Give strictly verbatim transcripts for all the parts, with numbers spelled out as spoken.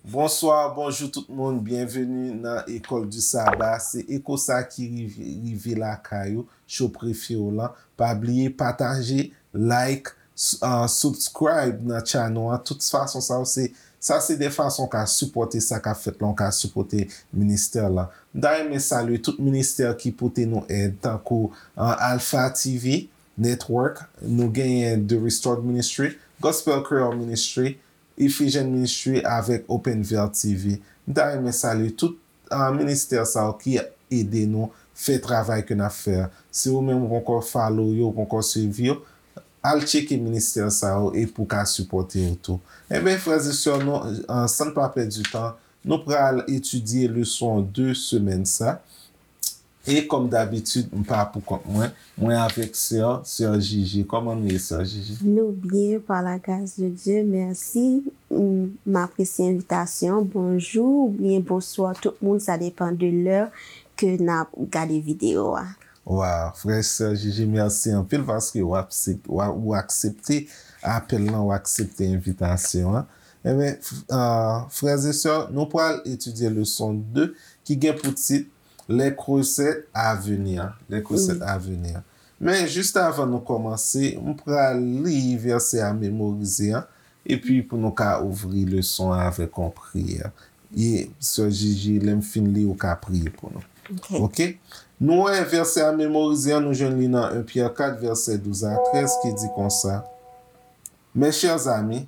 Bonswa, bonjou tout moun, byenveni nan École du Sabbat. Se eko sa ki rive, rive lakay ou, show prefere w lan. Pa bliye pataje, like, s- uh, subscribe nan channel an. Tout fason sa yo se sa se de fason w ka sipòte sa k ap fèt la, w ka sipòte ministè la. M ta renmen salye tout ministè ki pote nou èd, tankou uh, Alpha T V Network, nou genyen The Restored Ministry, Gospel Creole Ministry, Ephesian Ministry avèk Open Veil T V. M ta renmen salye tout uh, ministè sa yo ki ede nou fè travay ke n ap fè a. Si ou menm ou poko follow yo, ou poko swiv yo, al tcheke ministè sa yo e pou ka sipòte yo tou. Enben, frè e sè, nou, uh, san n pa pèdi tan, nou pral etidye leson de semèn sa. E kòm dabitid, m pa pou kont mwen, mwen avèk sè, sè Jiji. Kòman nou ye, sè Jiji? Nou byen, par la grâce de Dieu, mèsi. M apresye envitasyon. Bonjou oubyen bonswa tout moun, sa depan de lè ke n ap gade videyo a. Waw, frè sè Jiji, mèsi anpil paske w aksep- w a- ou aksepte apèl lan, ou aksepte envitasyon an. Enben, frè e sè, nou pral etidye leson de ki gen pou tit Les recettes à venir. Les recettes à venir. Men jis avan nou kòmanse, m pral li vèsè a memorize an, epi pou nou ka ouvri leson an avèk yon priyè. E sè Jiji, lè m fin li, ou ka priye pou nou. Ok. Ok? Nou wè vèsè a memorize an, nou jwenn li nan en Pyè kat, vèsè douz a trèz, ki di konsa, Mes chers amis,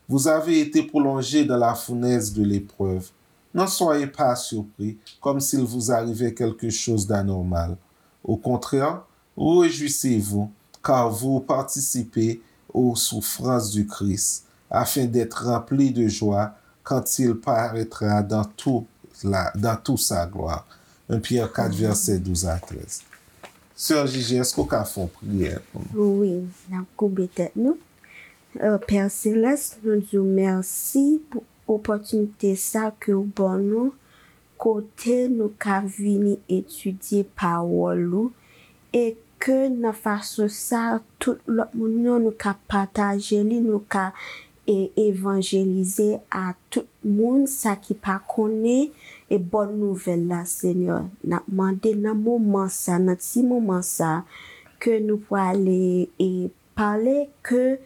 vous avez été prolongés dans la fournaise de l'épreuve. N'en soyez pas surpris, comme s'il vous arrivait quelque chose d'anormal. Au contraire, réjouissez-vous, car vous participez aux souffrances du Christ, afin d'être remplis de joie quand il paraîtra dans tout la, dans toute sa gloire. En Pyè kat, vèsè douz a trèz. Sè Jiji, èske w ka fè yon priyè pou nou? Wi, n ap koube tèt nou. Euh, Pè Selès, nou di w mèsi pou opòtinite sa ke w ban nou, kote nou ka vini etidye pawòl ou, e ke nan fason sa, tout lòt moun yo, nou ka pataje li, nou ka e evanjelize a tout moun sa ki pa konnen e bòn nouvèl la, Senyè. N ap mande nan moman sa, nan ti moman sa, ke nou prale e pale, ke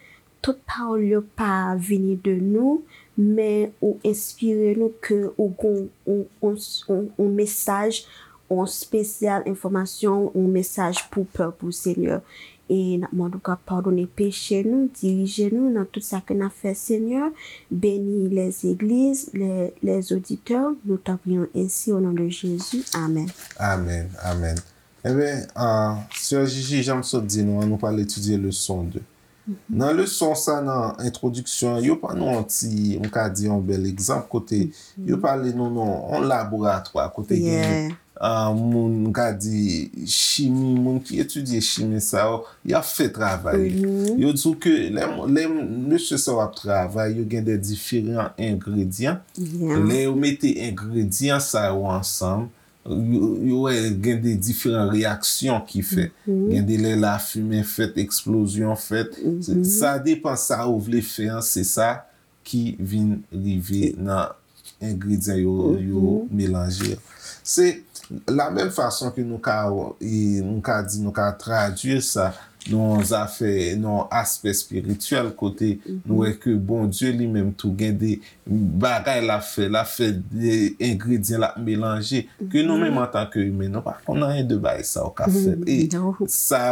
tout pawòl yo pa vini de nou, men ou enspire nou, ke ou gon on, on, on, on mesaj, on spesyal enfòmasyon, on mesaj pou pèp ou, Senyè. E n ap mande w ka padone peche nou, dirije nou nan tout sa ke n ap fè, Senyè. Beni les églises, les, les auditeurs. Nous t'en prions ainsi au nom de Jésus. Amen. Amen, amen. Enben, uh, sè Jiji, jan m sot di nou an, nou pral etidye leson de. Nan leson sa, nan entwodiksyon an, yo ban nou yon ti, m ka di yon bèl egzanp kote yo pale nou nan yon laboratwa, kote gen uh, moun, m ka di chimi, moun ki etidye chimi sa yo, y ap fè travay. Yo di w ke lè, lè mesye sa yo ap travay, yo gen de diferan engredyan. Lè yo mete engredyan sa yo ansanm, yo, yo wè gen de diferan reyaksyon ki fèt. Gen de lè lafimen fèt, eksplozyon fèt. Se- Sa depan sa ou vle fè an, se sa ki vin rive nan engredyan yo, yo melanje. Se la menm fason ke nou ka, e, nou ka di, nou ka tradui sa nan zafè, nan aspè espirityèl, kote nou wè ke Bondye li menm tou gen de bagay l ap fè, l ap fè de engredyan l ap melanje, ke nou menm antanke imen, nou pa konn anyen de bagay sa yo k ap fèt. E sa,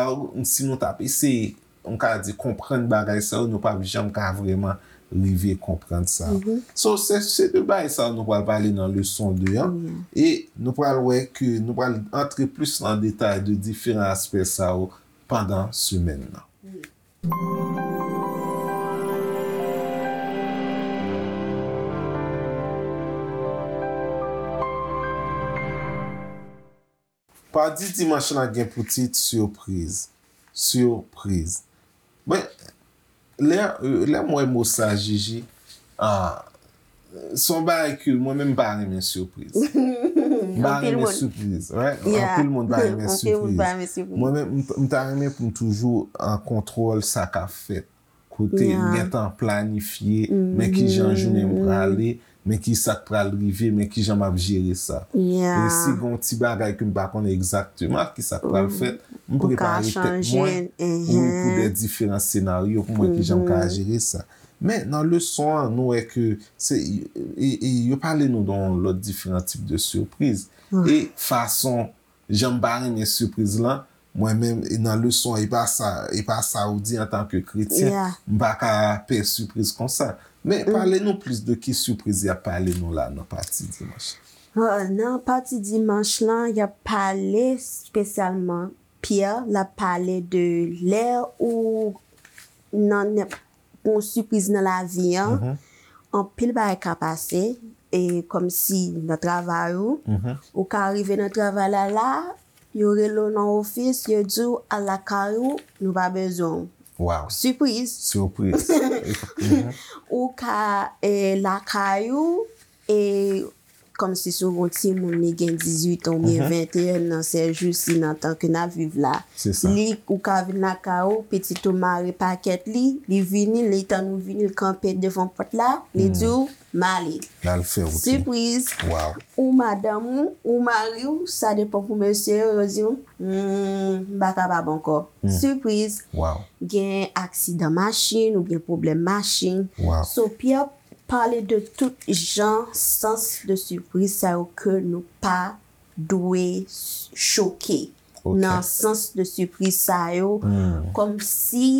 si nou t ap eseye, m ka di, konprann bagay sa yo, nou p ap janm ka vrèman rive konprann sa. So, se, se de bagay sa yo nou pral pale nan leson de an. E nou pral wè ke nou pral antre plis nan detay de diferan aspè sa yo pandan semèn nan. Padi dimanch lan gen pou tit sipriz. Sipriz. Men, lè, lè m wè mo sa, Jiji, ah, se yon bagay ke mwen menm m pa renmen sipriz. M pa renmen sipriz, right? Anpil moun pa renmen sipriz. Mwen menm, m, m ta renmen pou m toujou an kontwòl sa k ap fèt. Kote m gentan planifye, men ki jan jounen m prale, men ki sa k pral rive, men ki jan m ap jere sa. E si gen yon ti bagay ke m pa konnen egzakteman ki sa k pral fèt, m prepare tèt mwen, wi, pou de diferan senaryo pou mwen ki jan m ka jere sa. Men nan leson an, nou wè ke se, e, e, yo pale nou de yon lòt diferan tip de sipriz. E fason jan m pa renmen sipriz lan, mwen menm, e nan leson an, e pa sa, e pa sa ou di antanke kretyen, m pa ka pè sipriz konsa. Men pale nou plis de ki sipriz y ap pale nou la nan pati dimanch. Nan pati dimanch lan, y ap pale espesyalman, Pyè, l ap pale de lè ou nan nenp- yon sipriz nan lavi an, anpil bagay ka pase, e kòmsi nan travay ou, ou ka rive nan travay la la, yo rele w nan ofis, yo di w al lakay ou, nou pa bezwen w. Sipriz. Ou ka e, lakay ou, e kòmsi si w gen yon timoun li gen dizuit an oubyen venteyen an, sèjousi nan tan ke n ap viv la, li, ou ka vin lakay ou, pitit ou mare pakèt li, li vini, li tann ou vini, li kanpe devan pòt la, li di w m ale. Sipriz. Ou madanm ou, ou mari w, sa depann pou mesye yo, yo di w m pa kapab ankò. Sipriz. Gen aksidan machin oubyen pwoblèm machin. So Pyè pale de tout jan sans de sipriz sa yo ke nou pa dwe choke nan sans de sipriz sa yo, kòmsi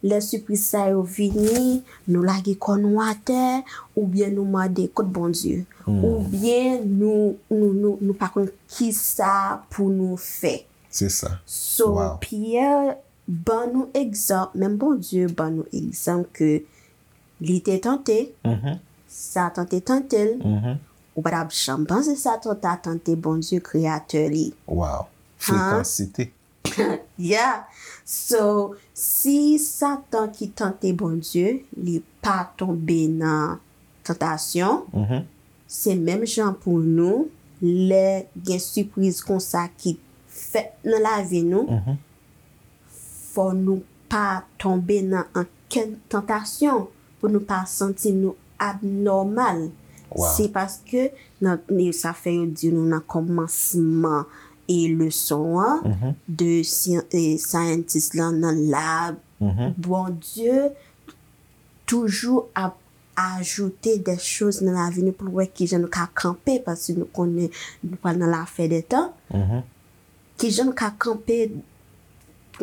lè sipriz sa yo vini, nou lage kò nou atè, oubyen nou mande kot Bondye, oubyen nou, nou, nou, nou pa konn kisa pou nou fè. So Pyè ban nou egzanp, menm Bondye ban nou egzanp ke li te tante, Satan te tante l, ou pa t ap janm panse Satan ta tante Bondye, Kreyatè li. Wow. Frekansite. Yeah. So, si Satan ki tante Bondye, li pa tonbe nan tantasyon, se menm jan pou nou, lè gen sipriz konsa ki fèt nan lavi nou, fò nou pa tonbe nan ankenn tantasyon pou nou pa santi nou abnòmal. Se paske nan, sa fè yo di nou nan kòmansman e leson an, de syantis lan nan lab, Bondye toujou ap ajoute de choz nan lavi nou pou l wè kijan nou ka kanpe, paske nou konnen nou pral nan lafen de tan. Kijan nou ka kanpe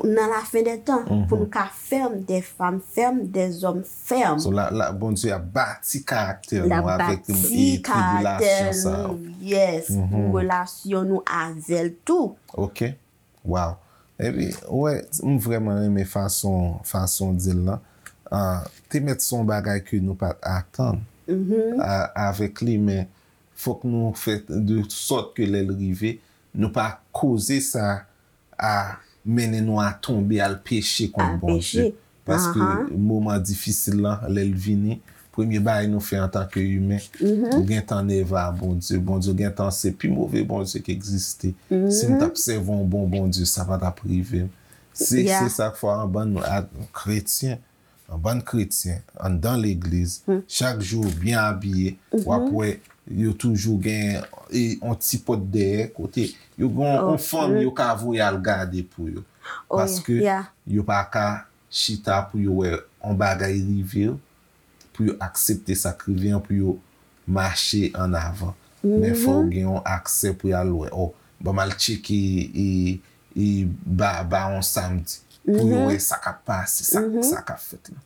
nan lafen de tan, pou nou ka fèm, de fanm fèm, de zòm fèm. So, la, la, Bondye ap bati karaktè nou avèk e, tribilasyon sa yo. Yes, pou relasyon nou avè l tou. Ok. Wow. Epi, ou wè, m vrèman renmen fason, fason w di l lan. Ah, te mèt se yon bagay ke nou pa t atann a, avèk li, men fòk nou fè de sòt ke lè l rive, nou pa koze sa a mennen nou a tonbe al peche kont Bondye. Paske moman difisil lan, lè l vini, premye bagay nou fè antanke imen, ou gentan nève a Bondye. Bondye gentan se pi move Bondye ki egziste. Si m t ap sèvi yon bon Bondye, sa pa t ap rive m. Se, se sa k fè anba nou, kretyen, yon bann kretyen anndan legliz, chak jou yo byen abiye, w ap wè yo toujou gen e, yon ti pòt dèyè kote yo gen yon fanm yo ka voye al gade pou yo. Paske yo pa ka chita pou yo wè yon bagay rive yo, pou yo aksepte sa k rive an, pou yo mache ann avan. Men fò w gen yon aksè pou y al wè. O, ban m al tcheke e, e ba, ba yon samdi pou yo wè sa k ap pase, sa, sa k ap fèt la.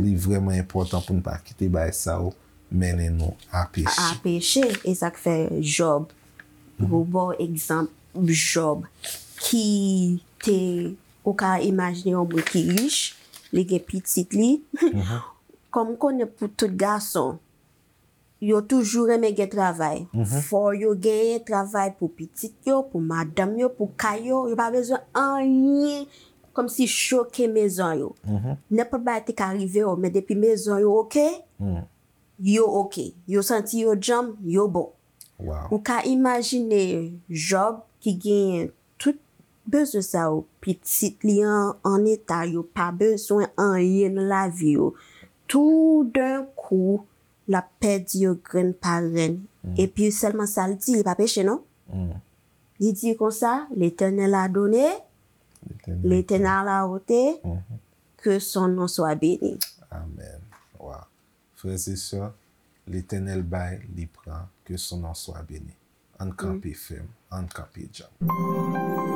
Li vrèman enpòtan pou n pa kite bagay sa yo mennen nou a peche. A peche. E sa k fè Jòb, pou ba w egzanp Jòb, ki te, ou ka imajine yon moun ki rich, li gen pitit li. Kòm m konnen pou tout gason, yo toujou renmen gen travay. Fò yo genyen travay pou pitit yo, pou madanm yo, pou kay yo. Yo pa bezwen anyen kòmsi choke mezon yo. Nenpòt bagay te ka rive yo, men depi mezon yo oke, yo oke. Yo santi yo djanm, yo bon. Ou ka imajine Jòb ki genyen tout bezwen sa yo, pitit li an, an eta, yo pa bezwen anyen nan lavi yo. Toudenkou, l ap pèdi yo grenn pa grenn. Epi sèlman sa l di, li pa peche non. Li di konsa, L'Éternel a donné, L'éternel. L'Éternel a ôté, que son nom soit béni. Amen. Wow. Frères et sœurs, Letènèl bay, li pran, que son nom soit béni. Ann kanpe fèm, ann kanpe djanm.